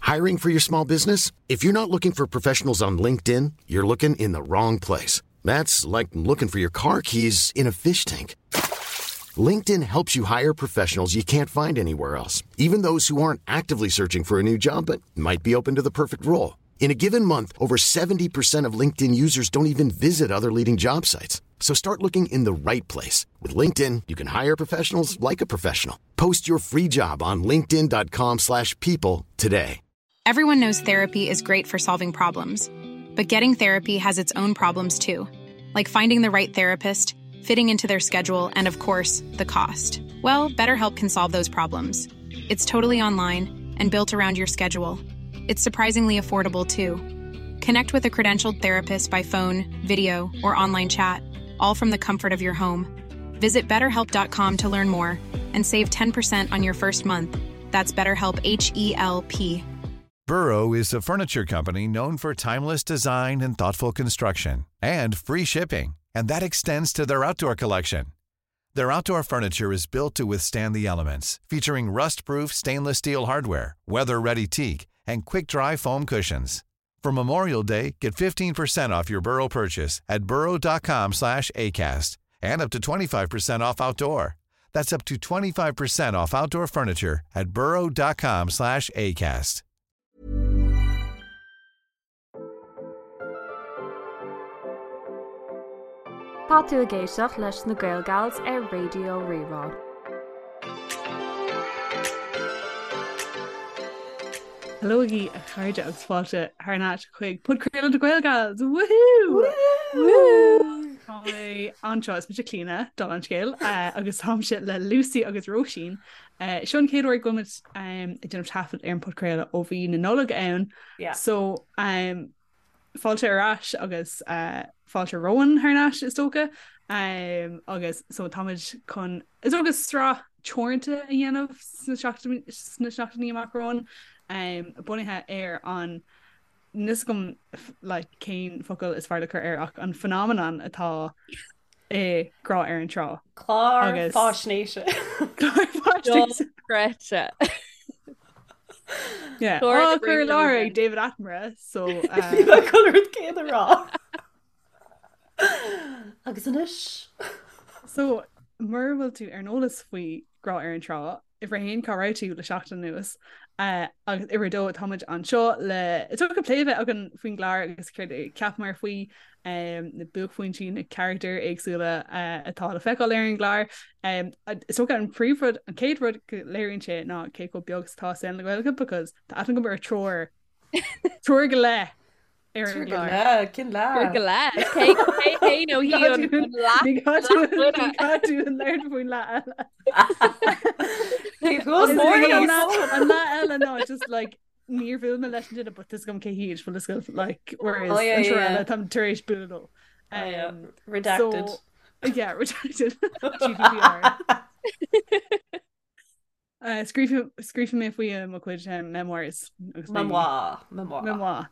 Hiring for your small business? If you're not looking for professionals on LinkedIn, you're looking in the wrong place. That's like looking for your car keys in a fish tank. LinkedIn helps you hire professionals you can't find anywhere else, even those who aren't actively searching for a new job but might be open to the perfect role. In a given month, over 70% of LinkedIn users don't even visit other leading job sites. So start looking in the right place. With LinkedIn, you can hire professionals like a professional. Post your free job on linkedin.com slash people today. Everyone knows therapy is great for solving problems, but getting therapy has its own problems too, like finding the right therapist, fitting into their schedule, and of course, the cost. Well, BetterHelp can solve those problems. It's totally online and built around your schedule. It's surprisingly affordable too. Connect with a credentialed therapist by phone, video, or online chat, all from the comfort of your home. Visit betterhelp.com to learn more and save 10% on your first month. That's BetterHelp H E L P. Burrow is a furniture company known for timeless design and thoughtful construction and free shipping, and that extends to their outdoor collection. Their outdoor furniture is built to withstand the elements, featuring rust-proof stainless steel hardware, weather-ready teak, and quick-dry foam cushions. For Memorial Day, get 15% off your Burrow purchase at burrow.com slash ACAST and up to 25% off outdoor. That's up to 25% off outdoor furniture at burrow.com slash ACAST. Tá tú ag éisteacht leis na Gaelgals ar Raidió Rí-Rá. Helóigí a chairde agus fáilte thar n-ais chuig podchraoladh na Gaelgals! Woohoo! Tá mé anseo is mise Clíona dála an scéil agus táimse le Lucy agus Róisín. Seo an chéad uair go bhfuil muid ag déanamh taifead ar an podchraoladh ó bhí na Nollag ann. So fáilte ar ais agus fáilte romhainn thar n-ais is dócha agus so táimid chun is dócha sraith teoranta a dhéanamh sna seachtainí amach romhainn bunaithe ar an níl 'fhios agam like cén focal is fearr le cur air ach an phenomenon atá i Grá ar an Trá. Clár faisnéise. Clár faisnéise. Dochreidte. Yeah. Á chur i láthair ag David Attenborough so Bhí mé chun an rud céanna a rá. Agus anois. So mura bhfuil tú ar an eolas faoi Grá ar an Trá, Uimhir a haon, cá raibh tú le seachtain anuas? Agus uimhir a dó, táimid anseo le is dócha plé a bheith againn faoin gclár agus céard a cheapamar faoi, na buaicphointí, na carachtair éagsúla atá le feiceáil ar an gclár. Is dócha an príomhrud, an chéad rud go léiríonn sé ná cé chomh beag is atá saol na Gaeilge because tá aithne agam ar triúr, triúr go leith Ar an gclár. Cén leath? Triúr go leith. Cé hé nó hí an leath? Ní gá dúinn labhairt faoin leath eile. An leath eile ná just like níor bhuail mé leis an duine but tá 'fhios agam cé hiad bhfuil 'fhios agat like whereas oh, yeah, an triúr eile táim tar éis bualadh leo. Um, redacted. So, yeah, redacted. GDPR. Scríobfaidh mé faoi i mo chuid memoirs. Memoir. Memoir. Memoir.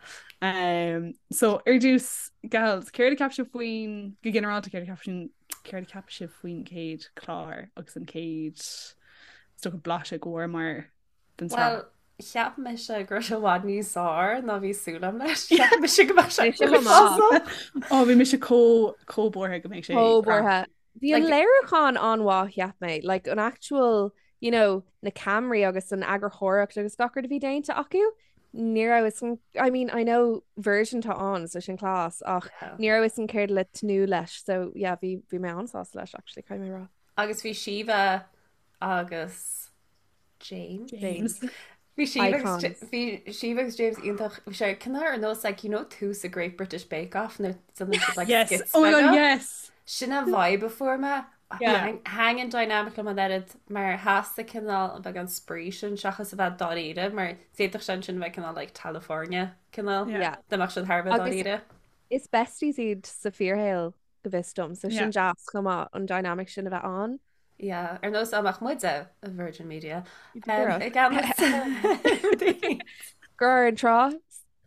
So ar dtús, gals, céard a cheap sibh faoin, go ginearálta céard a cheap sibh, céard a cheap sibh faoin chéad chlár agus an chéad is dócha blaiseadh go bhfuaireamar den tsraith? Well, cheap mise go raibh sé i bhfad níos fearr ná bhí súil agam leis. Cheap mise go mbeadh sé uafásach. Ó, bhí mise chomh chomh buartha go mbeadh sé Chomh buartha. Bhí an léiriúchán an-mhaith, cheap mé. Like, an actual, you know, na ceamaraí agus an eagarthóireacht agus gach rud a bhí déanta acu, ní raibh fhios agam, I mean, I know Virgin atá ann, so sin class, ach ní raibh fhios agam céard le tnúth leis, so yeah, bhí, bhí mé an-sásta leis, actually, caithfidh mé a rá. Agus bhí Síomha agus James. James. Bhí Síomha agus bhí Síomha agus James iontach. Bhí sé cineál ar nós like you know tús a Great British Bake Off nuair a déanann siad like Yes. skits Oh my God, beaga. yes. Sin an vibe a fuair mé. Yeah. Thaitin an dynamic liom an oiread mar theastaigh cineál an beagán spraoi sin seachas a bheith dáiríre mar d'fhéadfadh sé ansin a bheith cineál like California cineál Yeah. dá mbeadh siad thar a bheith Agus dáiríre. is besties iad sa fíorshaol go bhfios dom, so Yeah. sin deas chomh maith an dynamic sin a bheith ann. Yeah, ar nós dá mbeadh muide i Virgin Media. Díreach. I gceannas. Grá ar an Trá.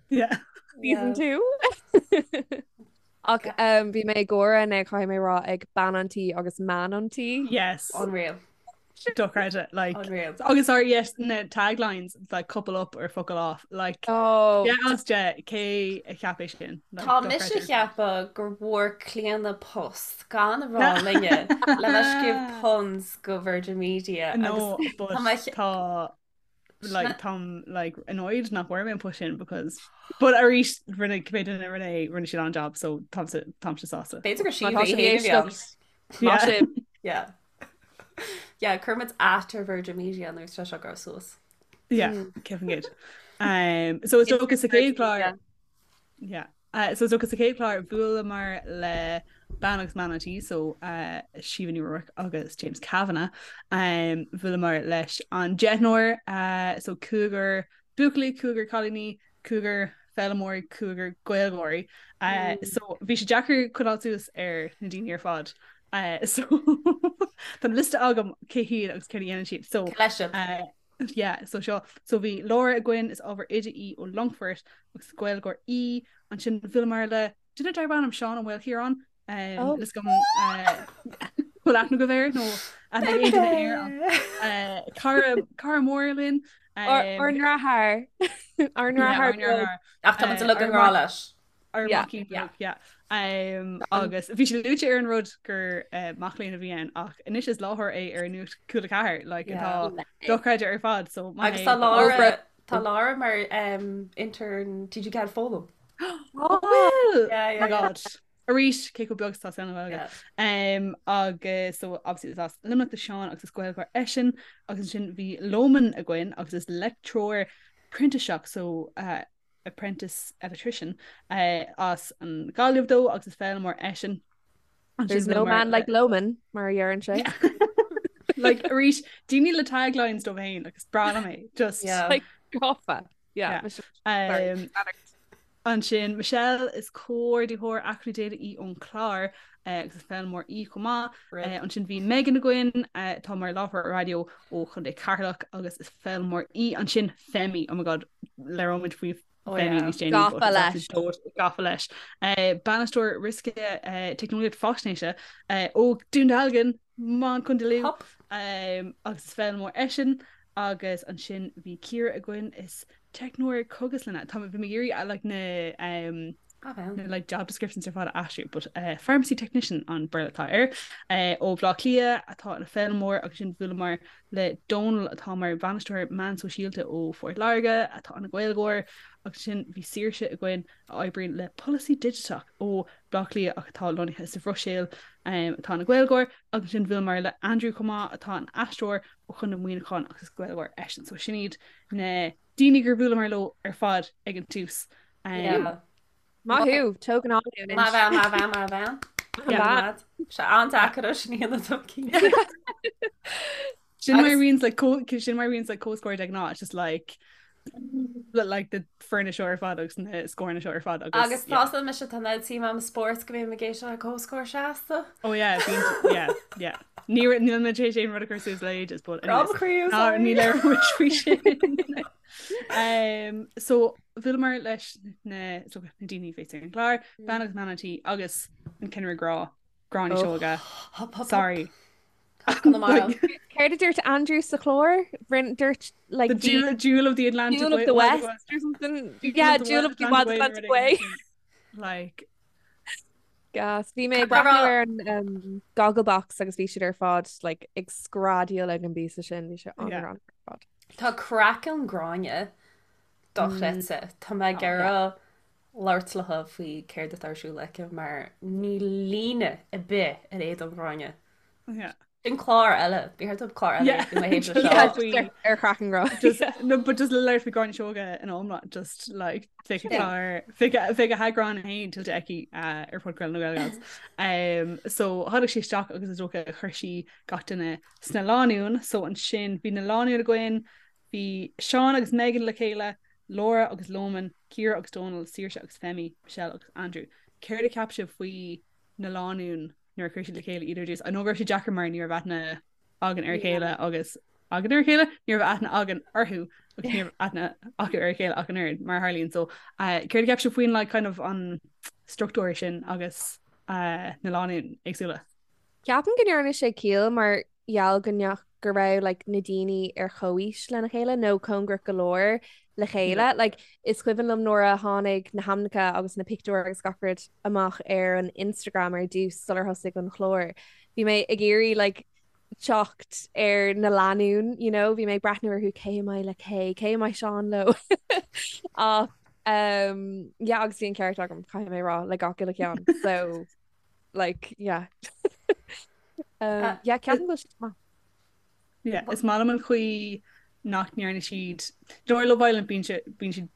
Yeah. Season 2. Ach um, bhí mé ag gáire inné caithfidh mé rá ag bean an tí agus man an tí. Yes. Unreal. Dochreidte like Unreal. agus sorry yes na taglines like couple up or fuckle off like Oh. yeah as de cé a cheap é sin like, Tá mise dochreidte. ceapadh gur bhfuair Clíona post gan a rá linne le bheith scríobh puns go Virgin Media No agus but tá mé che- tá like táim like annoyed nach bhfuair mé an post sin because but arís rinne cibé duine a rinne é rinne siad an-job so táimse táimse sásta. B'fhéidir gur Má tá Síomha sibh í ag féin a bhí ann. éisteacht, Má Yeah. sibh. Yeah. Yeah, cuirfimid at ar Virgin Media nuair atá seo ag gabháil suas. Yeah, cefn gyd. Um, so is dócha sa chéad chlár Yeah. Uh, so is dócha sa chéad chlár bhuaileamar le bean agus man an tí so uh, Síomha Ní Ruairc agus James Kavanagh. Um, bhuaileamar leis an deichniúr uh, so cúigear buachaillí, cúigear cailíní, cúigear foghlaimeoirí, cúigear Gaeilgeoirí. Uh, so bhí sé deacair coinneáil suas ar na daoine ar fad. Uh, so tá liosta agam cé hiad agus céard a dhéanann siad. So Leis sibh. uh, yeah, so seo so bhí Laura againn is ábhar oide í ó Longfort agus Gaeilgeoir í ansin bhuaileamar le duine darb ainm Seán Ó Maoilchiaráin um, Oh. níl a fhios agam uh, bhfuil aithne agaibh air nó aithne ag aon duine air uh, cara cara mór linn Ár um, ndeartháir. Ár yeah, ndeartháir ár beag. ndeartháir. Ach tá muid Uh, uilig i ár ngrá mac leis. ár Yeah. maicín Yeah. beag, yeah. Um, agus bhí sé luaite ar an rud gur uh, mac léinn a bhí ann ach anois is láithreoir é ar Nuacht Cúla 4 like, Yeah. atá dochreidte ar fad so maith Agus é tá but Laura Over. tá Laura mar um, intern TG4 Foghlaim. Oh, bhfuil! Yeah, Oh yeah, my yeah. god. Arís cé chomh beag is atá saol na Gaeilge. Yeah. Um, agus so obviously is as Luimneach do Seán agus is Gaeilgeoir eisean agus ansin bhí Loman againn agus is leictreoir printíseach so uh, apprentice electrician uh, as an Ghaillimh dó agus is foghlaimeoir eisean. Ansin There's no bhuaileamar man le like Loman mar a deireann sé. Yeah. Like arís daoine le taglines dóibh féin agus breá liom é just Yeah. Like gafa. Yeah. Yeah. Michelle, sorry. Um, Ansin Michelle is comhordaitheoir acmhainní daonna í ón chlár uh, agus is foghlaimeoir í chomh maith. Rip. Uh, ansin bhí Megan againn uh, atá mar láithreoir raidió ó Chontae Cheatharlach agus is foghlaimeoir í ansin Femi oh my god labhróimid faoi Oh, Femi yeah. níos déanaí but Gafa is leis. absolute dóit gafa leis. Uh, Bainisteoir riosca uh, teicneolaíocht faisnéise uh, ó Dún Dealgan Man Contae Lú Hop. um, agus is foghlaimeoir eisean agus ansin bhí Ciara againn is teicneoir cógaslainne Tá bhí mé ag iarraidh like na um, Ah, bhean. na like job descriptions ar fad a aistriú but uh, pharmacy technician an Béarla atá air uh, ó Bhaile Átha Cliath atá ina foghlaimeoir agus ansin bhuaileamar le Dónal atá mar bhainisteoir meán sóisialta ó Phort Láirge atá ina Ghaeilgeoir agus ansin bhí Saoirse againn a oibríonn le polasaí digiteach ó Bhaile Átha Cliath ach atá lonnaithe sa Bhruiséil um, atá ina Ghaeilgeoir agus ansin bhuaileamar le Andrew chomh maith atá ina aisteoir ó Chontae Mhuineacháin agus is Gaeilgeoir eisean so sin iad na daoine gur bhuaileamar leo ar fad ag an tús. Um, Yeah. Maith thú, tógann an Má bhean, má bhean, má bhean. Yeah. Sé an-deacair sin a dhéanamh dom cinnte. Sin mar Agus- bhíonns like co sin mar bhíonns like comhscór de ghnáth it's just like like the foirne seo ar fad agus na scóranna seo ar fad agus Agus yeah. tá mise tá na tí am spóirt go mbím ag éisteacht le comhscór seasta. Oh yeah, bíonn yeah, yeah. Ní níl mé tar éis aon rud a chur suas le ages, but anyways. Croí Ná ní labhróimid faoi sin. Um, so bhuaileamar leis na so, na daoine féin ar an gclár, bean agus man an tí agus an cinnire grá, Gráinne Oh. Seoige. Sorry. Like, Céard a dúirt Andrew sa chlár? Rin dúirt like The jewel, jewel of the Atlantic Jewel of Way- the Wild West West. or something. Jewel Yeah, of the Jewel Wild of the Wild Atlantic Way Atlantic already. Way. Like Gas. Bhí mé Tá breathnú rá- ar an um, Gogglebox agus bhí siad ar fad like ag screadaíl ag an bpíosa sin bhí sé Yeah. an-an ar fad. Tá craiceann Gráinne dochreidte. Tá mé ag iarraidh labhairt léi faoi céard atá ar siúl aici mar ní líne ar bith ar éadan Gráinne. yeah. Sin clár eile, bhí thart clár eile Yeah. i mo thaobh Just seo. Yeah, faoi- just ar ar chraiceann Gráinne. Just no, but just labhairt faoi Gráinne Seoige in iomlán just like bheadh a Yeah. chlár bheadh a bheadh a heagrán féin tuillte aici uh, ar Podchraoladh na Gaelgals. Um, so tháinig sí isteach agus is dócha chuir sí gach duine sna lánúin, so ansin bhí na lánúin againn, bhí Seán agus Megan le chéile, Laura agus Loman, Ciara agus Donal, Saoirse agus Femi, Michelle agus Andrew. Céard a cheap sibh faoi na lánúin nuair a chuir siad le chéile iad ar dtús? I know go raibh sé deacair mar ní raibh aithne againn ar a chéile agus againn ar a chéile, ní raibh aithne againn orthu agus ní raibh aithne acu ar a chéile ach an oiread mar a tharlaíonn. So uh, céard a cheap sibh faoin like, kind of an struchtúr sin agus uh, na lánúin éagsúla? Ceapaim go ndearna sé ciall mar gheall go go raibh like na daoine ar chomhaois lena chéile nó cóngarach go leor le chéile. Like is cuimhin liom nuair a tháinig na hainmneacha agus na pictiúir agus gach rud amach ar an Instagram ar dtús sular thosaigh an chlár. Bhí mé ag iarraidh like teacht ar na lánúin, you know, bhí mé ag breathnú orthu cé a mbeidh le cé, cé a mbeidh Seán leo. Ach um, yeah, agus bhí an ceart agam caithfidh mé rá le gach uile cheann. So like yeah. um, uh, yeah, ceapaim go bhfuil siad maith. Yeah, is maith liom an chaoi nach ndearna siad Dóir Love Island bíonn bíonn siad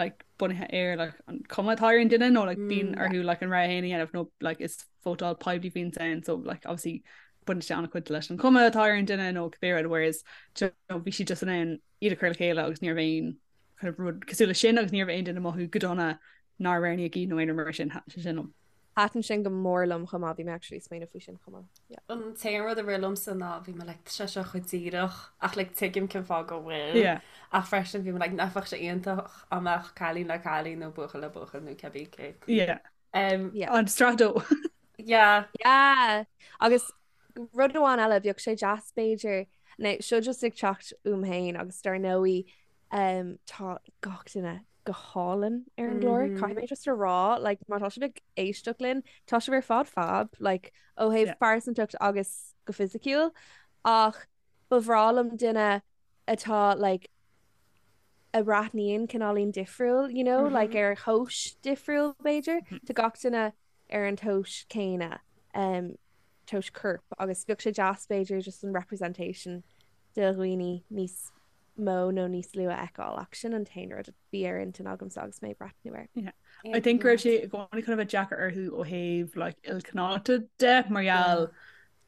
like bunaithe ar like an cuma atá ar an duine nó like bíonn mm. orthu like an rogha féin a dhéanamh nó like is vótáil poiblí a bhíonn ann so like obviously baineann sé an-chuid leis an chuma atá ar an duine nó cibé rud whereas you know, bhí siad just in ann iad a chur le chéile agus ní raibh aon kind of rud cosúil leis sin agus ní raibh aon duine ag mothú go dona nár roghnaíodh iad nó aon rud mar sin thaitin sé sin liom. Thaitin sin go mór liom chomh maith, bhí mé actually ag smaoineamh faoi sin chomh maith. Yeah. An t-aon rud a rith liomsa ná bhí mé like tá sé seo chomh díreach ach like tuigim cén fáth go bhfuil. Yeah. Ach freisin bhí mé like nach bheadh sé iontach dá mbeadh cailín le cailín nó buachaill le buachaill nó cibé cé. Yeah. Um, Yeah. An strato. yeah. Yeah. Agus rud amháin eile, bheadh sé deas b'fhéidir, now seo just ag teacht uaim féin agus dar ndóigh um, tá gach duine go hálainn ar an gclár. Mm -hmm. Caithfidh mé just a rá, like, má tá sibh ag éisteacht linn, tá sibh ar fad fab, like, ó thaobh yeah. pearsantacht agus go fisiciúil, ach ba bhreá liom duine atá like, a bhreathnaíonn cineáilín difriúil, you know, mm -hmm. like ar thomhas difriúil b'fhéidir, mm -hmm. Tá gach duine ar an tomhas céanna um, tomhas coirp agus bheadh sé deas b'fhéidir just an representation de dhaoine níos mó nó níos lú a fheiceáil ach sin an t-aon rud a bhí ar intinn agamsa agus mé ag breathnú air. Yeah. I think go raibh sé i gcónaí chun a bheith deacair orthu ó thaobh like, ilchineálta de mar gheall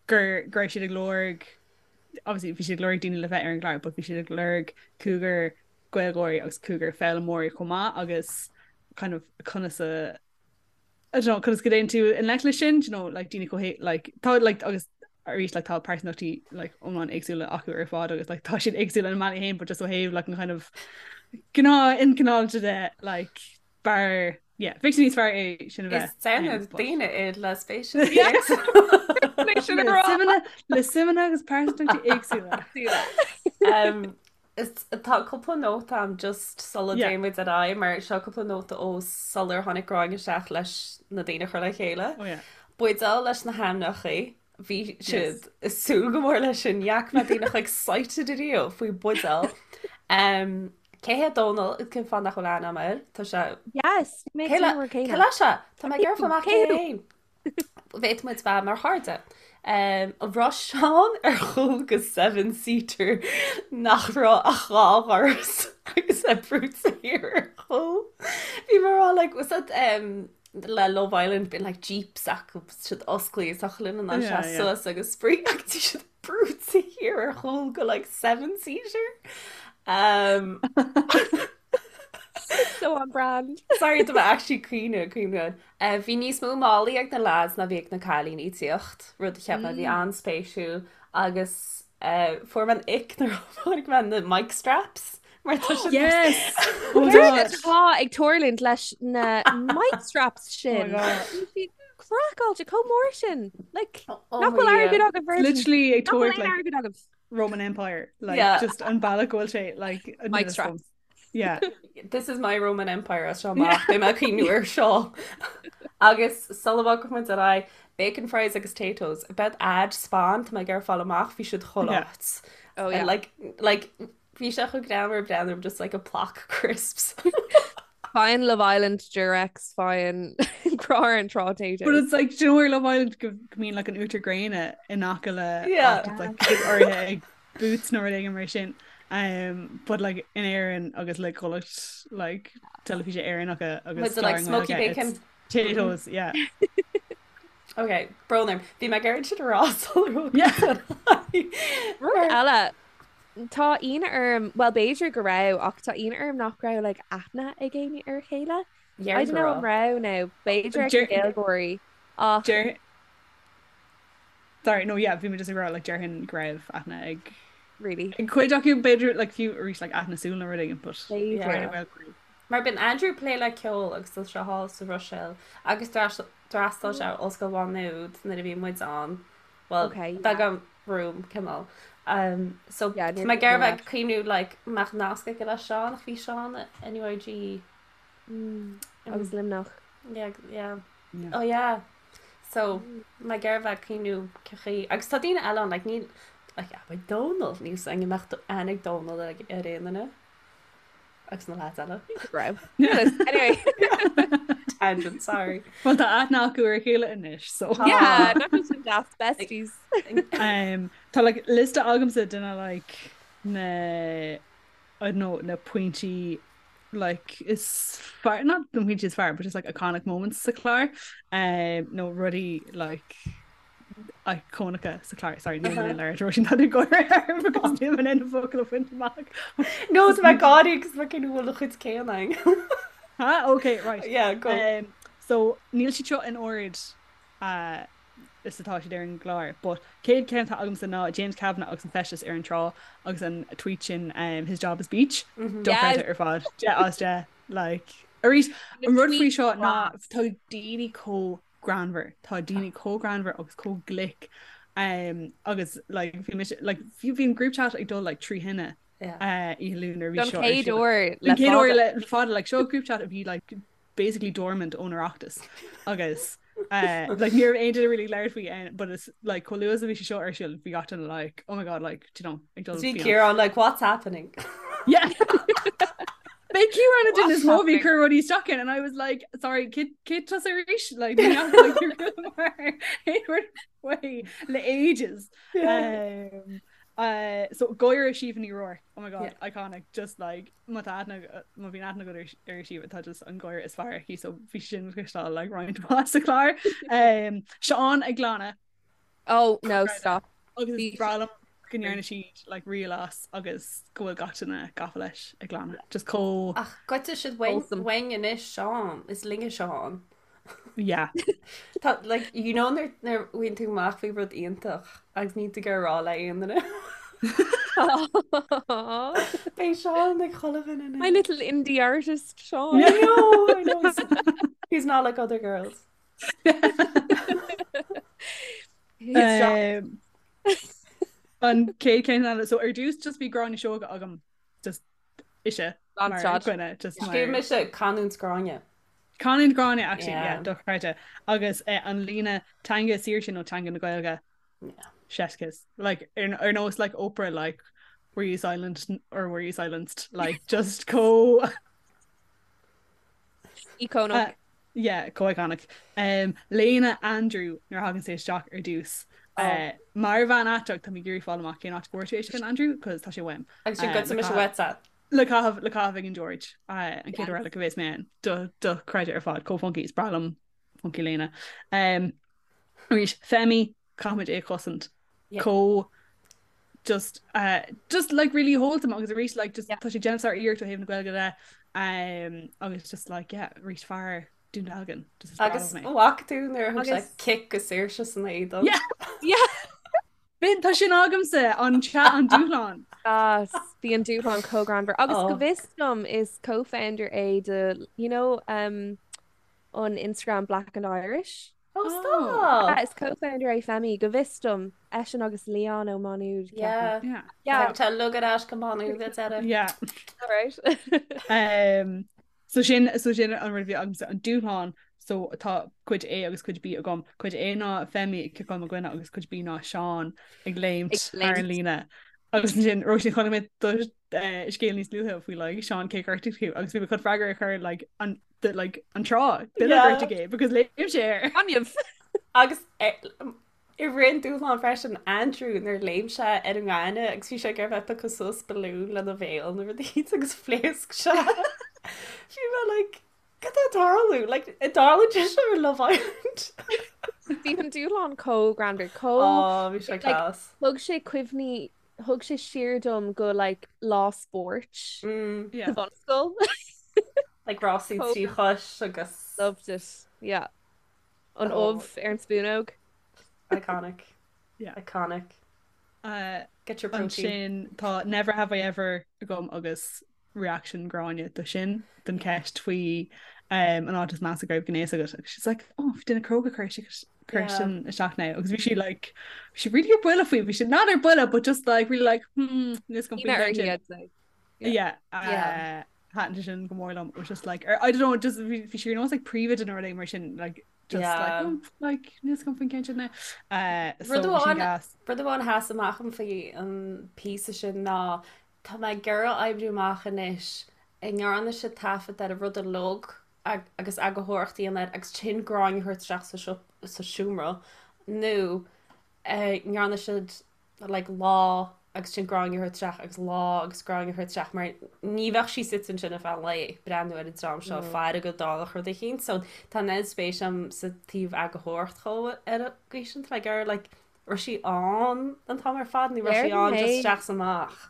gur go raibh siad ag lorg obviously bhí siad ag lorg daoine le bheith ar an gclár but bhí siad ag lorg cúigear Gaeilgeoirí agus cúigear foghlaimeoirí chomh maith agus kind of conas a I don't know, conas go dtéann tú i ngleic leis sin, you know, like daoine chomh like tá like agus arís like tá pearsantachtaí like iomlán éagsúla acu ar fad agus like tá siad éagsúil ina mbealaí féin but just ó thaobh like an kind of gnáth ilchineálta de like b'fhearr yeah bheadh sé níos fearr é sin a bheith. Is déanamh daoine iad le spéis le suimeanna agus pearsantachtaí éagsúla. Um, Tá cúpla nóta agam just sula dtéann muid ar aghaidh mar seo cúpla nóta ó sular tháinig Gráinne isteach leis na daoine a chur le chéile. Oh yeah. Buidéal leis na hainmneacha, bhí siad ag súil go mór leis sin, ní fhaca mé daoine chomh excited ariamh faoi buidéal. Um, cé hé Dónal, cén fáth nach bhfuil aithne agam air? Tá sé... Yes, bhí mé ag Cé le súil cé céanna. leis sé? Tá mé ag iarraidh fáil amach cé Cé hé féin. Bhféadfadh muid bheith mar chairde. An raibh Seán ar chúl go seven seater nach raibh ach dhá dhoras agus é brúite thiar ar chúl. Bhí mé ag rá like was that um, le Love Island bíonn like jeeps acu siad osclaí is achan duine in ann seasamh suas agus spraoi ach bhí siad brúite thiar ar chúl go like seven seater. Um, So on brand. Sorry tá mé actually caoineadh caoineadh. Bhí níos mó málaí ag na lads ná bhí ag na cailíní ag tíocht, rud a cheap mé a bhí an-spéisiúil agus fuair mé an ick nuair a chonaic mé na mic straps mar tá siad Yes! Oh my Céard God! atá ag tarlúint leis na mic straps Oh my sin? God. Bhí siad craiceáilte chomh mór sin. Like, Oh nach my bhfuil airgead Dhia. agaibh Virgin? Literally ag Nach bhfuil tabhairt aon like airgead agaibh? Roman Empire like Yeah. just an bealach go bhfuil sé like an Mic duine straps. Yeah. This is my Roman Empire as seo amach, beidh mé ag cuimhniú ar seo. Agus sula bhfágfaidh muid ar aghaidh, bacon fries agus Taytos. Beidh ad Spáinn, tá mé ag iarraidh fáil amach, bhí siad chuile Yeah. áit. Oh yeah. And like, like, bhí sé chomh greannmhar breathnú just like a plac crisps. Faigheann Love Island Durex, faigheann Crá ar an Trá Taytos. But it's like, do you know where Love Island go go mbíonn like an uachtar gréine in aice le Yeah. áit, it's like áirithe ag Boots nó rud éigin mar sin. Um, but like in Éirinn agus le comhlacht like teilifíse Éireannacha agus With the like cláir smoky nGaeilge, bacon. it's Taytos, yeah. Ok, brón orm. Bhí mé ag iarraidh sin a rá sular thug Yeah. muid ar aghaidh. Rud Mar eile, tá ionadh orm, well b'fhéidir go raibh ach tá ionadh orm nach raibh like aithne ag éinne ar a chéile. I Dhear don't go know an raibh. raibh nó b'fhéidir ag na Deir Gaeilgeoirí ach deir Sorry, no, yeah, bhí mé just ag rá, like, déarfainn go raibh aithne ag Really? ag cuid acu, b'fhéidir, like, fiú arís, like, aithne súl nó rud éigin, but B'fhéidir. Yeah. well, b'fhéidir. Mar bíonn Andrew ag plé le ceol agus tá sé thall sa Bhruiséil agus d'fhreastail sé ar Ollscoil Mhá Nuad nuair a bhí muid ann. Well, Okay, yeah. beagán room, cineál. Um, so Yeah, tá níor mé ag iarraidh mé bheith ag cuimhniú like mbeadh nasc aige le Seán ach bhí Seán in NUIG. Mm, agus Luimneach. Yeah, yeah. Yeah. Oh yeah. So mé ag iarraidh bheith ag cuimhniú cén chaoi. Agus tá daoine eile ann like níl like yeah, beidh Dónal níl 's againn an mbeadh aithne ag Dónal ar aon duine. Agus na lads eile. Raibh. Anyway. Tangent, sorry. Well tá aithne acu ar a chéile anois, so. Yeah, nach bhfuil sin deas, besties. Um, tá like liosta agamsa de na like na I don't know, na pointí like is fearr, not na pointí is fearr, but just like iconic moments sa chlár, um, nó rudaí like íocónacha sa chlár. Sorry, níl mé in ann labhairt Róisín tá tú ag gáire orm because níl mé in ann na focail a bhaint amach. No, tá mé ag gáire agus mé ag cuimhniú bhfuil a chuid céanna againn. Ha? Okay, right. Yeah, go. Um, so níl siad seo in ord uh, is atá siad ar an gclár, but céad ceann atá agamsa ná James Kavanagh agus an feisteas ar an trá agus an tweet sin um, his job is beach. Mm -hmm. Dochreidte ar fad. 10 as 10 like arís an rud faoi seo ná tá daoine chomh greannmhar. Tá daoine chomh greannmhar agus chomh glic um, agus like, bhí mise like, bhí an group chat ag dul like, trí thine uh, oíche Luain nuair a bhí seo ar chéad siúl. uair Don le chéad uair fada. le fada like, seo group chat a bhí like, basically dormant ón Oireachtas agus uh, like, ní raibh aon duine really labhairt faoi eh, but it's like chomh luath is a bhí sé seo ar siúl bhí gach duine like oh my god like you know ag dul Bhí fián. Ciarán like what's happening? Yeah. Bhí Ciarán an duine is mó What's a bhí happening? cur rudaí isteach in and I was like sorry cé cé tusa arís like ní fhaca like mar aon rud faoi le ages. Yeah. Um, uh, so gáire Síomha Ní Ruairc oh my god Yeah. iconic just like má tá aithne má bhíonn aithne agat ar ar Síomha tá just an gáire is fearr aici so bhí sin le cloisteáil like roinnt mhaith sa chlár. Um, Seán ag glanadh Oh no, stop. Agus Bhí is breá liom go ndearna siad like reel as agus go bhfuil gach duine gafa leis ag glanadh. Just chomh Ach goidte siad uainn Wholesome. uainn anois Seán, is linne Seán. yeah. Tá like you know nuair nuair a bhfaigheann tú amach faoi rud iontach agus níl tú ag iarraidh rá le aon duine. Beidh Seán ag chuile dhuine My anois. little indie artist, Seán. I know, I know. He's, he's not like other girls. He's Seán. Um, an chéad ceann eile so ar dtús just bhí Gráinne Seoige agam just ise Gan mar stad. dhuine just mar Scríobh mise canúint Gráinne. Canúint Gráinne actually yeah Yeah. dochreidte agus eh, an líne teanga saoirse nó teanga na Gaeilge Yeah. chef's kiss like ar, ar nós like Oprah like were you silent or were you silenced like just chomh Íocónach. Uh, yeah, chomh iconic. Um, Léine Andrew nuair a thagann sé isteach ar dtús. Oh. Uh, mar bhean aiteach tá mé ag iarraidh fáil amach cén áit go bhfuair tú é sin Andrew, cos tá sé uaim. Agus sin Uh, goidte le mise caitheamh- uaitse. le caitheamh le caitheamh ag an George uh, an chéad Yes. uair eile go bheas mé ann. Do dochreidte ar fad chomh funky is breá liom funky léine. Um, arís Femi caithfimid é a chosaint. Yeah. Chomh just uh, just like really wholesome agus arís like just Yeah. tá sé ag déanamh sár-iarracht ó thaobh na Gaeilge de um, agus just like yeah arís fear Dún Dealgan just is breá Agus liom é. bhfaca tú nuair a thug sé Agus- cic go Saoirse san éadan. Yeah. Yeah. B'in tá sin agamsa an chat an dúshlán. Yes, bhí an dúshlán chomh greannmhar. Agus go Oh. bhfios dom is co-founder é de, you know, um, an Instagram Black and Irish. Oh, Oh. stop! Yeah, is co-founder é Femi, go bhfios dom, eisean agus Leon Ó Maigh Nuad, ceapaim. Yeah. Yeah. Yeah, Tá lug ar ais go Maigh Nuad deireadh. Yeah. right. Um, so sin so sin an rud a bhí agamsa an dúshlán so tá cuid A agus cuid B agam. Cuid A ná Femi ag ciceáil mo dhuine agus cuid B ná Seán ag léimt Ag thar an léimt. líne. Agus ansin Róisín chonaic mé do eh, scéal níos luaithe faoi like Seán cé ghortaigh tú agus bhí mé chun freagra a chur like an the, like an trá duine Yeah. gortaigh é because léim sé air. Gaineamh. Agus eh, i rith an dúshlán freisin Andrew nuair léim sé ar an ngaineamh agus bhí sé ag iarraidh bheith ag piocadh suas balún lena bhéal nó rudaí agus phléasc sé. Bhí mé like cad tá ag tarlú? Like an dtarlaíonn sé seo ar Love Island? Bhí an dúshlán chomh greannmhar, chomh Oh, bhí sé like class. thug sé cuimhní, thug sé siar dom go like lá spóirt Mm. sa Yeah. bhunscoil. Like rásaí Chomh trí chois agus loved it. Yeah. An oh, ubh ar an spúnóg. iconic. Yeah. Iconic. Uh, Get your protein. Ansin tá Never Have I Ever agam agus reaction Gráinne do sin don ceist faoi um, an áit is measa go raibh gnéas agat. Agus she's like, oh, bhí duine cróga chuir sé Cuir sin isteach now agus bhí sí like bhí sí really ar buile faoi bhí sí not ar buile but just like really like hmm níl 's agam faoin gceann sin. Yeah, yeah. Uh, thaitin sé sin go mór liom was just like or, I don't know just bhí sí ar nós like príomhoide nó rud mar sin like just yeah. like oh, like níl 's agam faoin gceann sin now. Uh, so Rud amháin a sheas amach dom faoi an píosa sin ná tá mé ag iarraidh oibriú amach anois an ndearna siad taifead ar an rud uilig agus eagarthóireacht a dhéanamh air agus ansin Gráinne a thabhairt isteach sa seomra nó an ndearna siad like lá agus ansin Gráinne a thabhairt isteach agus lá agus Gráinne a thabhairt isteach mar ní bheadh sí suite ansin ar feadh an lae ag breathnú ar an dream seo ag faire go dtarlódh rud eicínt so tá an oiread spéis agam sa taobh eagarthóireacht chomh ar an gcaoi sin tá mé ag iarraidh like raibh sí ann an t-am ar fad nó raibh sí ann just isteach is amach.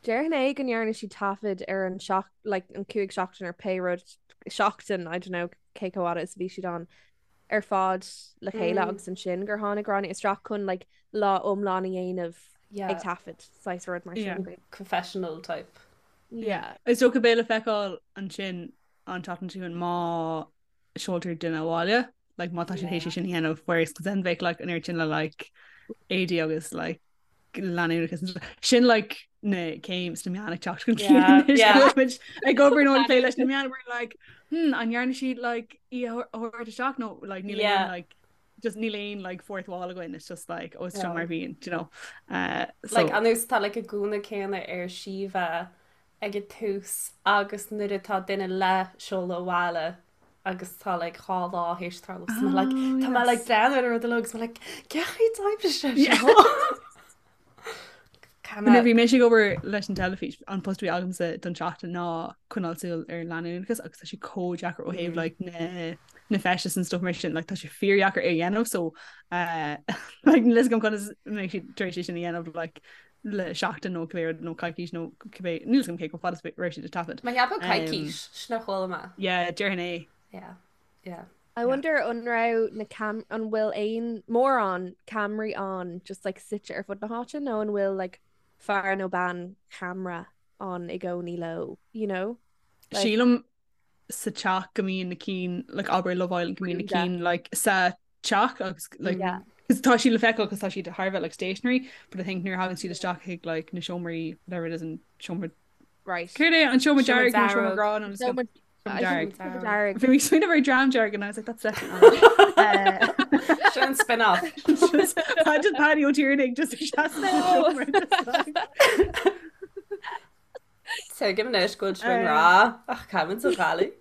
Déarfainn é go ndearna sí taifead ar an seach like an 5 seachtain ar pé rud seachtain I don't know cé chomh fhada is a bhí siad ann ar fad le chéile mm. agus ansin gur tháinig Gráinne isteach chun like lá iomlán a dhéanamh yeah. ag taifead saghas rud mar sin. Yeah. Confessional type. Yeah. Is dócha beidh le feiceáil ansin an tseachtain seo má seoltar duine abhaile like má tá siad théis sin a dhéanamh whereas cos then bheadh like an oiread sin le like éadaí agus like leanúnachas sin like na céim sna meáin ag teacht chun cinn anois go bhfuil muid ag obair nó ag plé leis na meáin we're like hmm an ndearna siad like í a thabhairt isteach nó like níl aon like just níl aon like fourth wall againn it's just like oh it's seo mar bhíonn you know uh, so like an nós tá like an gúna céanna ar Síomha ag an tús agus nuair atá duine le seoladh abhaile agus tá like dhá lá théis tarlú so mé like tá mé like breathnú ar an rud uilig agus mé like cén chaoi a d'oibrigh sé seo? Nuair a bhí mise ag obair leis an teilifís, an post a bhí agamsa don tseachtain ná coinneáil súil ar leanúnachas agus tá sé chomh deacair ó thaobh like na na feistis and stuff mar sin like tá sé fíordheacair é a dhéanamh so uh, like níl a fhios agam conas a mbeidh siad tar éis é sin a dhéanamh like le seachtain nó cibé rud nó coicís nó cibé níl a fhios agam cé chomh fada is a raibh siad ag taifead. Mé ag ceapadh coicís, sin a chuala mé. Yeah, déarfainn é. Yeah, yeah. I wonder an raibh na cam an bhfuil aon mórán ceamaraí ann just like suite ar fud na háite nó an bhfuil like fear nó bean cheamara ann i gcónaí leo, you know? Like, Sílim sa teach go mbíonn na cinn like abair Love Island go mbíonn na cinn like sa teach agus like yeah. tá siad le feiceáil cos tá siad thar a bheith like stationary but I think nuair a thagann siad isteach chuig like na seomraí whatever it is an seomra right Céard é an seomra dearg nó seomra grá nó seomra dearg dearg Bhí mé ag smaoineamh ar dream dearg and I was like that's definitely uh, Sin spin-off Just Paddy Ó Tiarnaigh just seomra Tuigim anois go bhfuil sibh i ngrá ach caithfimid a ghaillimh.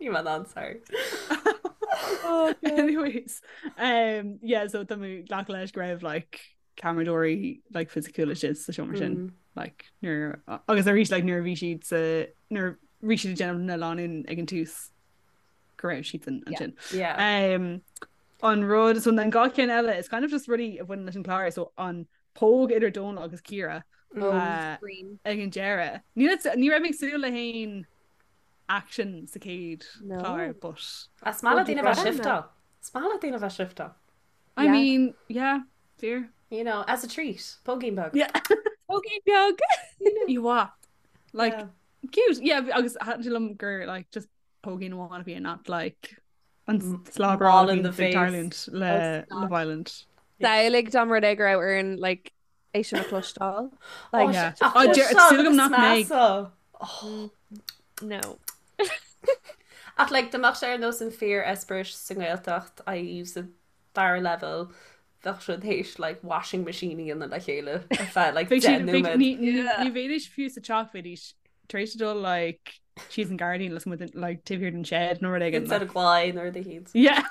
Ní mar an sorry. Oh, Anyways, um, yeah, so tá mé ag glacadh leis go raibh like ceamaradóirí like fisiciúla istigh sa seomra sin mm. like nuair agus arís like nuair a bhí siad sa nuair a bhí siad ag déanamh na lánúin ag an tús go raibh siad san ansin. Yeah. Um, an rud so an dá cheann eile is kind of just rudaí a bhaineann leis an chlár so an póg idir Dónal agus Ciara oh, ag an deireadh. Ní ní raibh mé ag súil le haon action sa chéad chlár but Is maith le daoine bheith shifteáil. Is maith le daoine bheith shifteáil. I mean, yeah, fíor. You know, as a treat, póigín beag. Yeah. Póigín beag. You what? Like, yeah. cute. Yeah, agus thaitin sé liom gur like just póigín amháin a bhí not like an slobber in the face tarlúint le Love Island. Samhlaigh dá mba rud é go raibh orainn like é sin a chloisteáil. Like yeah. Oh, súil agam nach mbeidh. No. Ach like dá mbeadh sé ar nós an fíor eispéireas sa nGaeltacht i.e. sa dara leibhéal bheadh siad théis like washing machine a dhéanamh le chéile ar feadh like 10 nóiméad. Ní bheidís fiú sa teach bheidís tar éis dul like síos an gairdín lasmuigh den like taobh thiar den shed nó rud éigin. Instead of glae nó rud éicint. Yeah.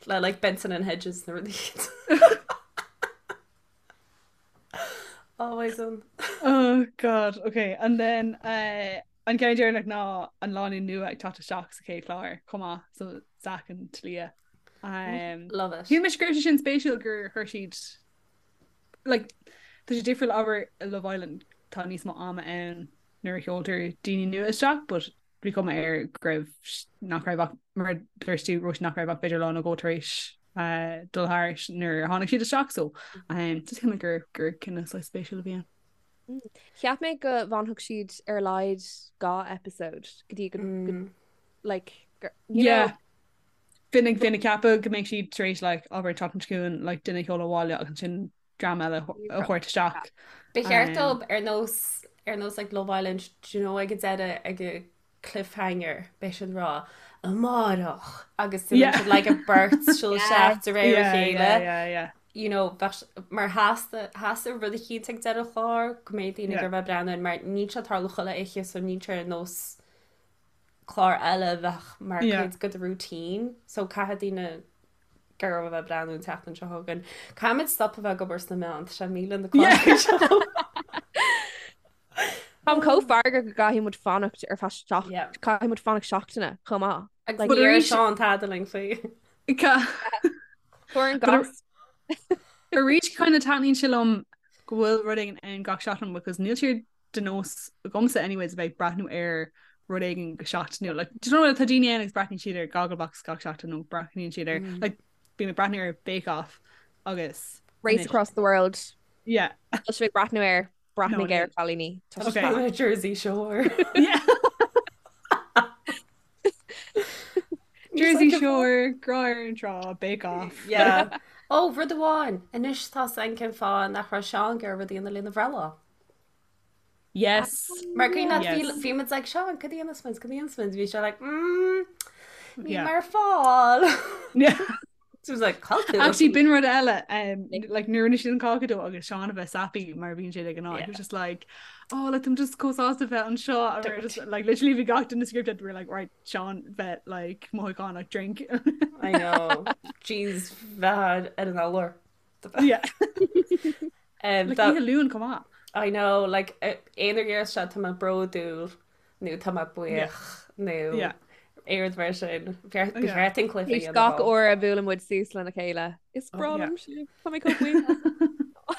Le like Benson and Hedges nó rud éicint. Always on. Oh God, okay. And then uh, an ceann deireanach ná an lánúin nua ag teacht isteach sa chéad chlár chomh maith so Zach and Talia. Um, Love it. Shíl mise go raibh sé sin spéisiúil gur chuir siad like, tá sé difriúil abair i Love Island tá níos mó ama ann nuair a sheoltar daoine nua isteach but bhí cuma air go raibh nach raibh ach mar a dúirt tú Róisín nach raibh ach b'fhéidir lá nó dhó tar éis uh, dul thairis nuair a tháinig siad isteach so um, just shíl mé gur gur cinneadh saghas spéisiúil a bhí ann. Cheap mé go bhfanfadh siad ar a laghad dhá episode go dtí go, go like. You know? Yeah. Bhínn ag bhínn ag ceapadh go mbeidh siad tar éis like abair an tseachtain seo chugainn like duine a sheoladh abhaile agus ansin dream eile a thabhairt isteach. Ba cheart dóibh ar nós ar nós like Love Island do you know ag an deireadh ag an cliffhanger beidh siad ag rá amárach agus yeah. siad like a beirt siúl isteach de réir a chéile. You know, bheadh mar theastaigh theastaigh rud eicínt ag deireadh an chláir go mbeidh daoine ag bheith breathnú mar níl sé ag tarlú chuile oíche so níl sé ar nós clár eile a bheadh mar chuid de do routine so caithfidh daoine go raibh a bheith breathnú an tseachtain seo chugainn. Caithfimid stop a bheith ag obair sna meáin, tá sé milleadh na cláir seo. Táim chomh feargach go gcaithfidh muid fanacht ar feadh seach- Yeah. caithfidh muid fanacht seachtaine chomh maith. Agus Like, ní raibh Seán tada linn faoi. Fuair an gas. Arís kind of taitníonn sé liom go bhfuil rud éigin ann gach seachtain because níl sé de nós agamsa anyways a bheith ag breathnú ar rud éigin go seachtainiúil. Like, do you know tá daoine ann agus breathnaíonn siad ar Gogglebox gach seachtain nó breathnaíonn siad ar mm. like, bím ag breathnú ar Bake Off agus Race Across the World. Yeah. Tá sibh ag breathnú air breathnaigh air cailíní. Okay. Jersey Shore. Yeah. Jersey Shore, Grá ar an Trá, Bake Off. Yeah. Ó, rud amháin, anois tá a fhios agam cén fáth nach raibh Seán ag iarraidh rud a dhéanamh lena bhreithlá. Yes. Mar cuimhin leat bhí muid like Seán, cad a dhéanfas muid, cad a dhéanfas muid, bhí sé like mm, níl mé ar fáil. Yeah. So was like cá bhfuil tú. Actually b'in rud eile um, like nuair a rinne siad an cáca dó agus Seán a bheith sappy mar a bhíonn sé de ghnáth. He was just like oh like I'm just chomh sásta bheith anseo and we were just like literally bhí gach duine scripted we were like right Seán bheith like mothúchánach drink. I know. Jeez bheith ar an álar. Yeah. Um, like oíche Luain chomh maith. I know, like aon uair seo tá mé bródúil nó tá mé buíoch nó aon rud mar sin. Ba cheart an cluiche a dhéanamh. Gach uair a bhuaileann muid suas lena chéile. Is breá liom sibh. Tá mé chomh buíoch.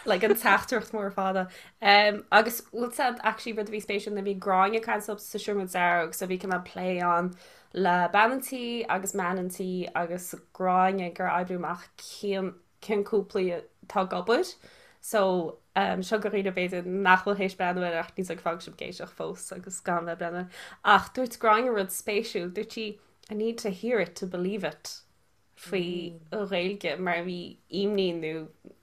Like an teachtaireacht mór fada. Um, agus bhfuil said actually rud a bhí spéisiúil nuair a bhí Gráinne ag caint sa seomra dearg so bhí cineál plé ann le bean an tí agus man an tí agus Gráinne ag iarraidh oibriú amach cén cén cúplaí atá ag obair so um, seo do dhaoine b'fhéidir nach bhfuil théis breathnú air ach níl fág sibh ag éisteacht fós agus gan bheith breathnú air. Ach dúirt Gráinne rud spéisiúil, dúirt sí I need to hear it to believe it faoi mm. Ghaeilge mar bhí imní nó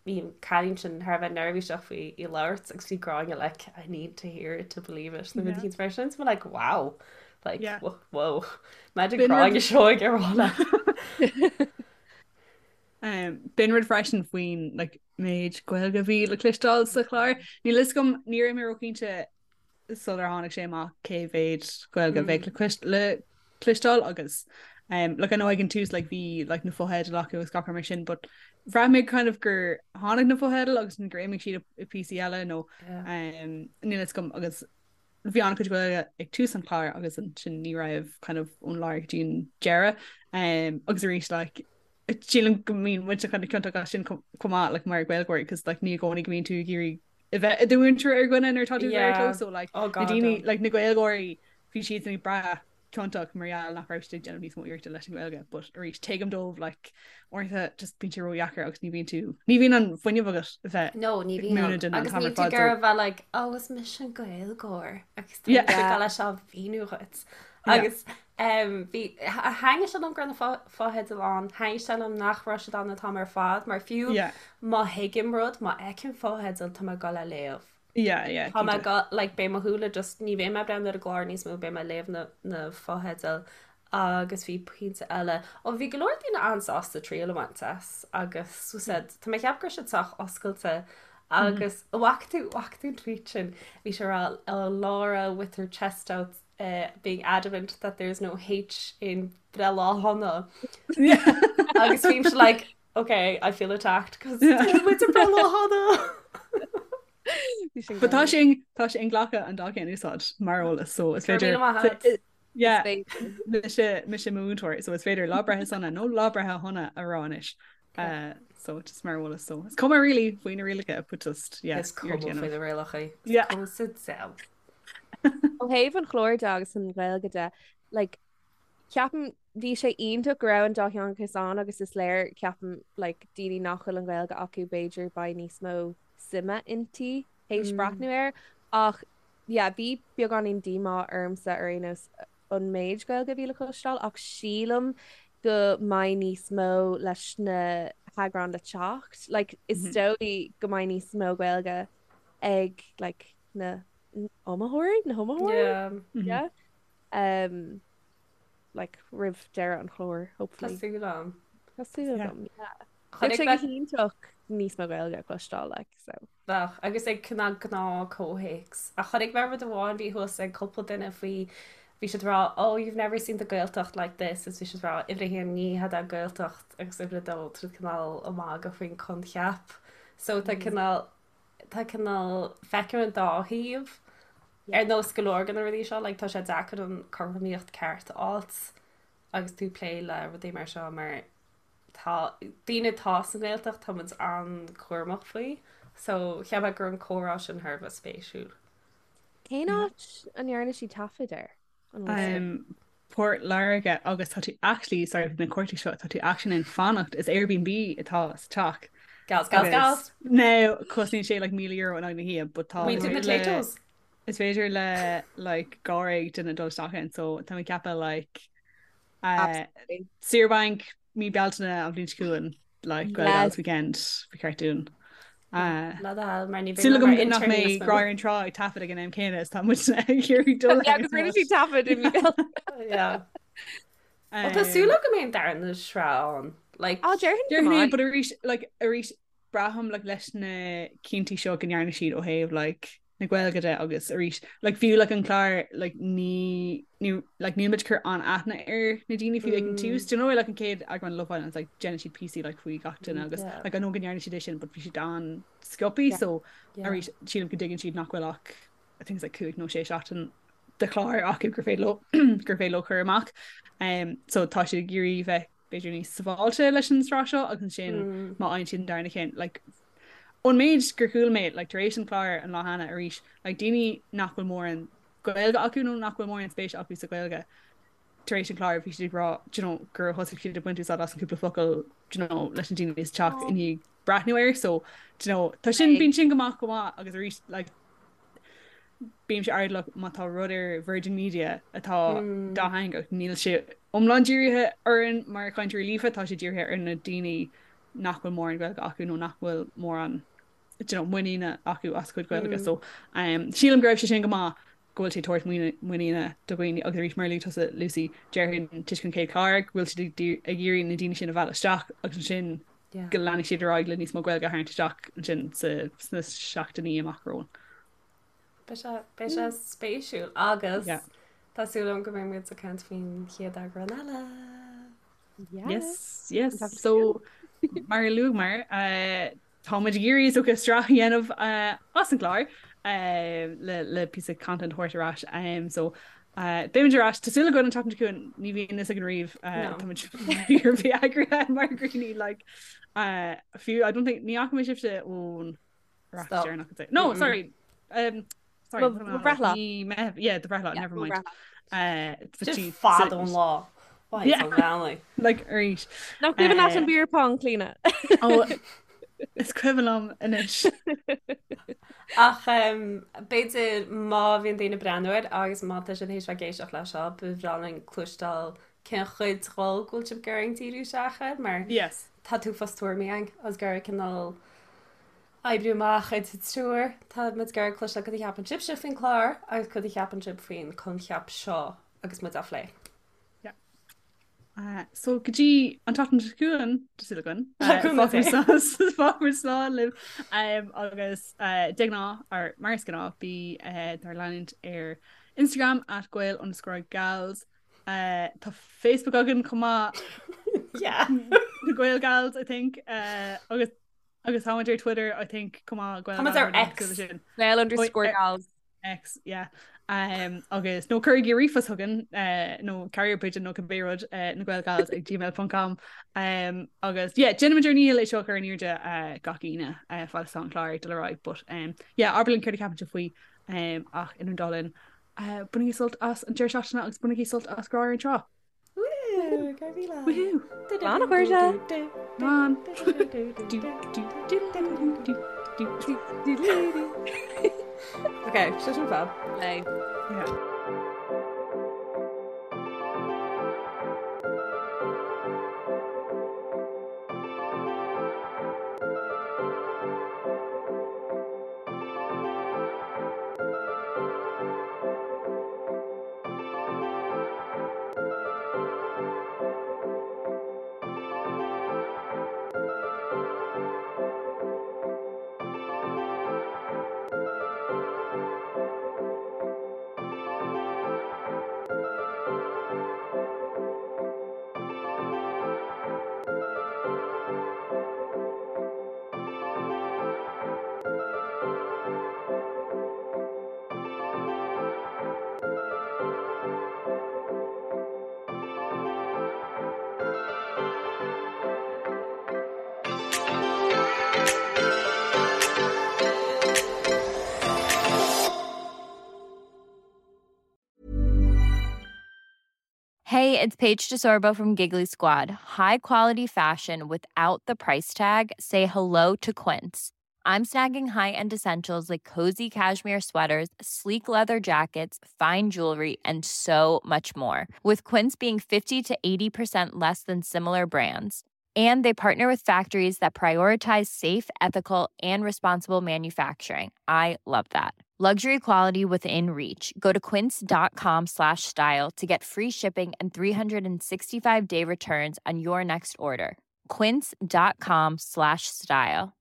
bhí an cailín sin thar a bheith neirbhíseach faoi í labhairt agus bhí Gráinne like I need to hear it to believe it nó yeah. mar sin so like wow like yeah. whoa Imagine Gráinne Seoige ag rá leat. B'in rud freisin faoin like, méid Gaeilge a bhí le cloisteáil sa chlár. Níl fhios agam ní raibh mé róchinnte sular tháinig sé amach cé mhéid Gaeilge a bheadh le, le cloisteáil agus um, like, I know ag an tús like, bhí like, na fotheidil acu agus gach rud mar sin, but bhraith mé kind of gur tháinig na fotheidil agus gur imigh siad i píosaí eile nó um, níl fhios agam agus bhí an-chuid Gaeilge ag tús an chláir agus ansin ní raibh kind of ón lár go dtí an deireadh um, agus arís like, sílim go mbíonn muid kind of ciontach as sin chomh maith like, mar Gaeilgeoirí cos like, ní i gcónaí go mbíonn tú ag iarraidh a bheith i do mhúinteoir ar dhuine nuair atá tú yeah. so like, oh, na daoine like, na Gaeilgeoirí bhí siad ag brath ciontach mar gheall nach raibh siad ag déanamh níos mó iarrachta leis an Ghaeilge, but arís tuigim dóibh like uaireanta just bíonn sé ródheacair agus ní bhíonn tú ní bhíonn an fuinneamh agat a bheith No, ní bhíonn múineadh duine an agus t-am níl ar tú fad, ag iarraidh a bheith like oh is mise an Gaeilgeoir agus tá Yeah. mise ag leis á mhíniú dhuit. Yeah. Agus um, bhí thaitnigh sé liom go raibh na fotheidil ann, thaitnigh sé liom nach raibh siad ann an t-am ar fad, mar fiú Yeah. má thuigim rud, má fheicim fotheidil tá mé ag dul a léamh. Yeah, yeah, Tá mé go, like, beidh mo shúile just, ní bheidh mé ag breathnú ar an gclár níos mó, beidh mé ag léamh na, na fotheidil agus bhí pointe eile. Ó, bhí go leor daoine an-sásta triail a bhaint as agus so said, tá mé ag ceapadh go raibh siad sách oscailte agus mm. bhfaca tú, bhfaca tú an tweet sin, bhí sé ag rá oh, Laura with her chest out uh, being adamant that there's no H in Breithlá Shona. Agus bhí like, Ok, I feel attacked cos tá muid ag Breithlá Shona. But tá sé tá sé inghlactha an dá cheann a úsáid mar eolas so is féidir Yeah, mise mise múinteoir so is féidir lá breithe sona nó lá breithe shona a rá anois. Uh, so just mar eolas so is cuma really faoi na rialacha but just yeah, Is cuma faoi na rialacha. Yeah. Cuma sa diabhal. Ó thaobh an chláir de agus an Ghaeilge de, like, Ceapaim, bhí sé iontach go raibh an dátheangachas ann agus is léir, ceapaim, like, daoine nach bhfuil an Ghaeilge acu b'fhéidir beidh níos mó suime inti théis breathnú air ach yeah, bhí beagáinín díomá ormsa ar aon nós. an méid Gaeilge a bhí le cloisteáil ach sílim go mbeidh níos mó leis na heagráin le teacht. Like, is dóigh go mbeidh níos mó Gaeilge ag like, na iomaitheoirí, na hiomaitheoirí? Yeah. Yeah. Um, like, roimh deireadh an chláir, hopefully. Tá súil agam. Tá súil agam, yeah. Bheadh sé go hiontach níos mó Gaeilge a chloisteáil, like, so. Bheadh, agus ag cineál gnáth comhthéacs. Ach chonaic mé rud amháin, bhí thuas ag cúpla duine faoi, bhí siad ag rá, oh, you've never seen the Gaeltacht like this, is bhí siad ag rá, uimhir a haon, ní hea Gaeltacht, agus uimhir a dó, tá siad cineál ag magadh faoin coincheap. So tá cineál, tá cineál, feicim an dá thaobh. Ar nós go leor de na rudaí seo, like, tá sé deacair an cothromaíocht ceart a fháilt agus tú ag plé le rudaí mar seo mar tá daoine atá sa nGaeltacht, tá muid an-chúramach faoi. So cheap mé go raibh an comhrá sin thar a bheith spéisiúil. Cén áit a ndearna siad taifead air? An bhfuil fhios Um, Port Láirge agus tá tú actually, sorry, na cuartaigh seo, tá tú actually in ann fanacht, is Airbnb atá sa teach. Gals, gals, gals! Now, cosnaíonn sé like €1,000 in aghaidh na hoíche, but tá Muintir na potatoes. Is féidir le like dháréag duine dul isteach ann, so tá mé ag ceapadh like Saoire bainc mí Bealtaine an bhliain seo chugainn like Gael Gals weekend ba cheart dúinn. Súil agam nach mbeidh Grá ar an Trá ag taifead ag an am céanna is tá muid ag iarraidh dul Agus rinne siad taifead i mí Bealtaine. Well tá súil agam go mbeidh an darna sraith ann. Like Á déarfainn go mbeidh. But arís like arís braithim like leis na cinntí seo go ndearna siad ó thaobh like na Gaeilge de agus arís like fiú like an clár like ní ní like níl muid ag cur an-aithne ar na daoine fiú ag an tús. Do you know like an chéad eagrán Love Island like déanann siad píosaí like faoi gach duine agus Yeah. like I know go ndearna siad é sin but bhí siad an-sciobtha Yeah. so Yeah. arís sílim go dtuigeann siad nach bhfuil ach I think it's like 5 nó 6 seachtain de chlár acu gur féidir leo gur féidir leo cur amach. Um, so tá siad ag iarraidh bheith b'fhéidir níos sábháilte leis an sraith seo agus ansin má fhaigheann siad an darna ceann like ón méid gur chuala mé like tar éis an chlár an lá cheana arís like daoine nach bhfuil mórán Gaeilge acu nó nach bhfuil mórán spéise acu sa Ghaeilge tar éis an chlár bhí siad ag rá do you know gur thosaigh siad ag baint úsáid as an cúpla focal do you know leis na daoine sa teach i ndiaidh breathnú air so do you know tá sin bíonn sin go maith go maith agus arís like bímse airdeallach má tá rud ar Virgin Media atá dátheangach, níl sé iomlán dírithe orainn mar chainteoirí líofa, tá sé dírithe ar na daoine nach bhfuil mórán Gaeilge acu nó nach bhfuil mórán you know, muiníne acu as a gcuid Gaeilge. So um, sílim go raibh sé sin go maith go bhfuil sé ag tabhairt muiníne do dhaoine agus arís mar a luaigh tusa Lucy déarfainn toisc an chéad chlár go bhfuil siad ag iarraidh na daoine sin a mhealladh isteach agus ansin go leanfaidh siad ar aghaidh le níos mó Gaeilge a tharraingt isteach ansin sna seachtainí amach romhainn. Beidh sé beidh sé spéisiúil agus tá súil agam go mbeidh muid ag caint faoin chéad eagrán eile. Yes, yes. So mar a luaigh mar tá muid ag iarraidh is dócha sraith a dhéanamh as an gclár le le píosa content a thabhairt ar ais. Um, so beimid ar ais tá súil againn an tseachtain seo chugainn ní bhíonn fhios againn riamh tá muid fíor eagraithe mar dhaoine like fiú I don't think ní fhaca mé sibhse ón Stop. No, sorry. Um, sorry, Mo bhreithlá. Ní me yeah, do bhreithlá, never mind. Uh, Just fad ón lá. Yeah. Like arís. Nach cuimhin leat an beer pong Clíona. Oh, is cuimhin liom anois. Ach um, b'fhéidir má bhíonn daoine ag breathnú air agus má tá siad théis bheith ag éisteacht leis seo, ba bhreá linn cloisteáil cén chuid dhó go bhfuil sibh ag iarraidh díriú isteach air mar Yes. tá uafás tuairimí againn agus ag iarraidh cineál oibriú amach idir triúr. Tá muid ag iarraidh cloisteáil cad a cheapann sibhse faoin chlár agus cad a cheapann sibh faoin coincheap seo agus muid á phlé. Yeah. Uh, so go dtí an tseachtain seo chugainn tá súil againn fágfaimid slán libh um, agus uh, de ghnáth ar mar is gnáth bí uh, dár leanúint ar Instagram at gael underscore gals Uh, tá Facebook againn chomh maith Yeah. na Gael Gals I think uh, agus agus táimid ar Twitter I think chomh maith Gael Tá muid ar X. Sin. Gael underscore gals. X yeah. Um, agus nó cuirigí ríomhphost chugainn uh, nó carrier pigeon nó cibé rud uh, na Gael Gals ag gmail.com um, agus yeah, déanaimid ár ndícheall é seo a chur in airde uh, gach Aoine uh, fad is atá an clár ag dul ar aghaidh but um, yeah, abair linn céard a cheapann sibh faoi um, ach idir an dá linn uh, bainigí sult as an deireadh seachtaine agus bainigí sult as Grá ar an Trá. Woo! Go raibh míle. Woohoo! Slán a chairde. Slán. Du, du, du, du, du, du, du. Ok, sé sin fab. Lei. Yeah. Hey, it's Paige DeSorbo from Giggly Squad. High quality fashion without the price tag. Say hello to Quince. I'm snagging high-end essentials like cozy cashmere sweaters, sleek leather jackets, fine jewelry, and so much more. With Quince being 50 to 80% less than similar brands. And they partner with factories that prioritize safe, ethical, and responsible manufacturing. I love that. Luxury quality within reach. Go to quince.com slash style to get free shipping and 365 day returns on your next order. Quince.com slash style.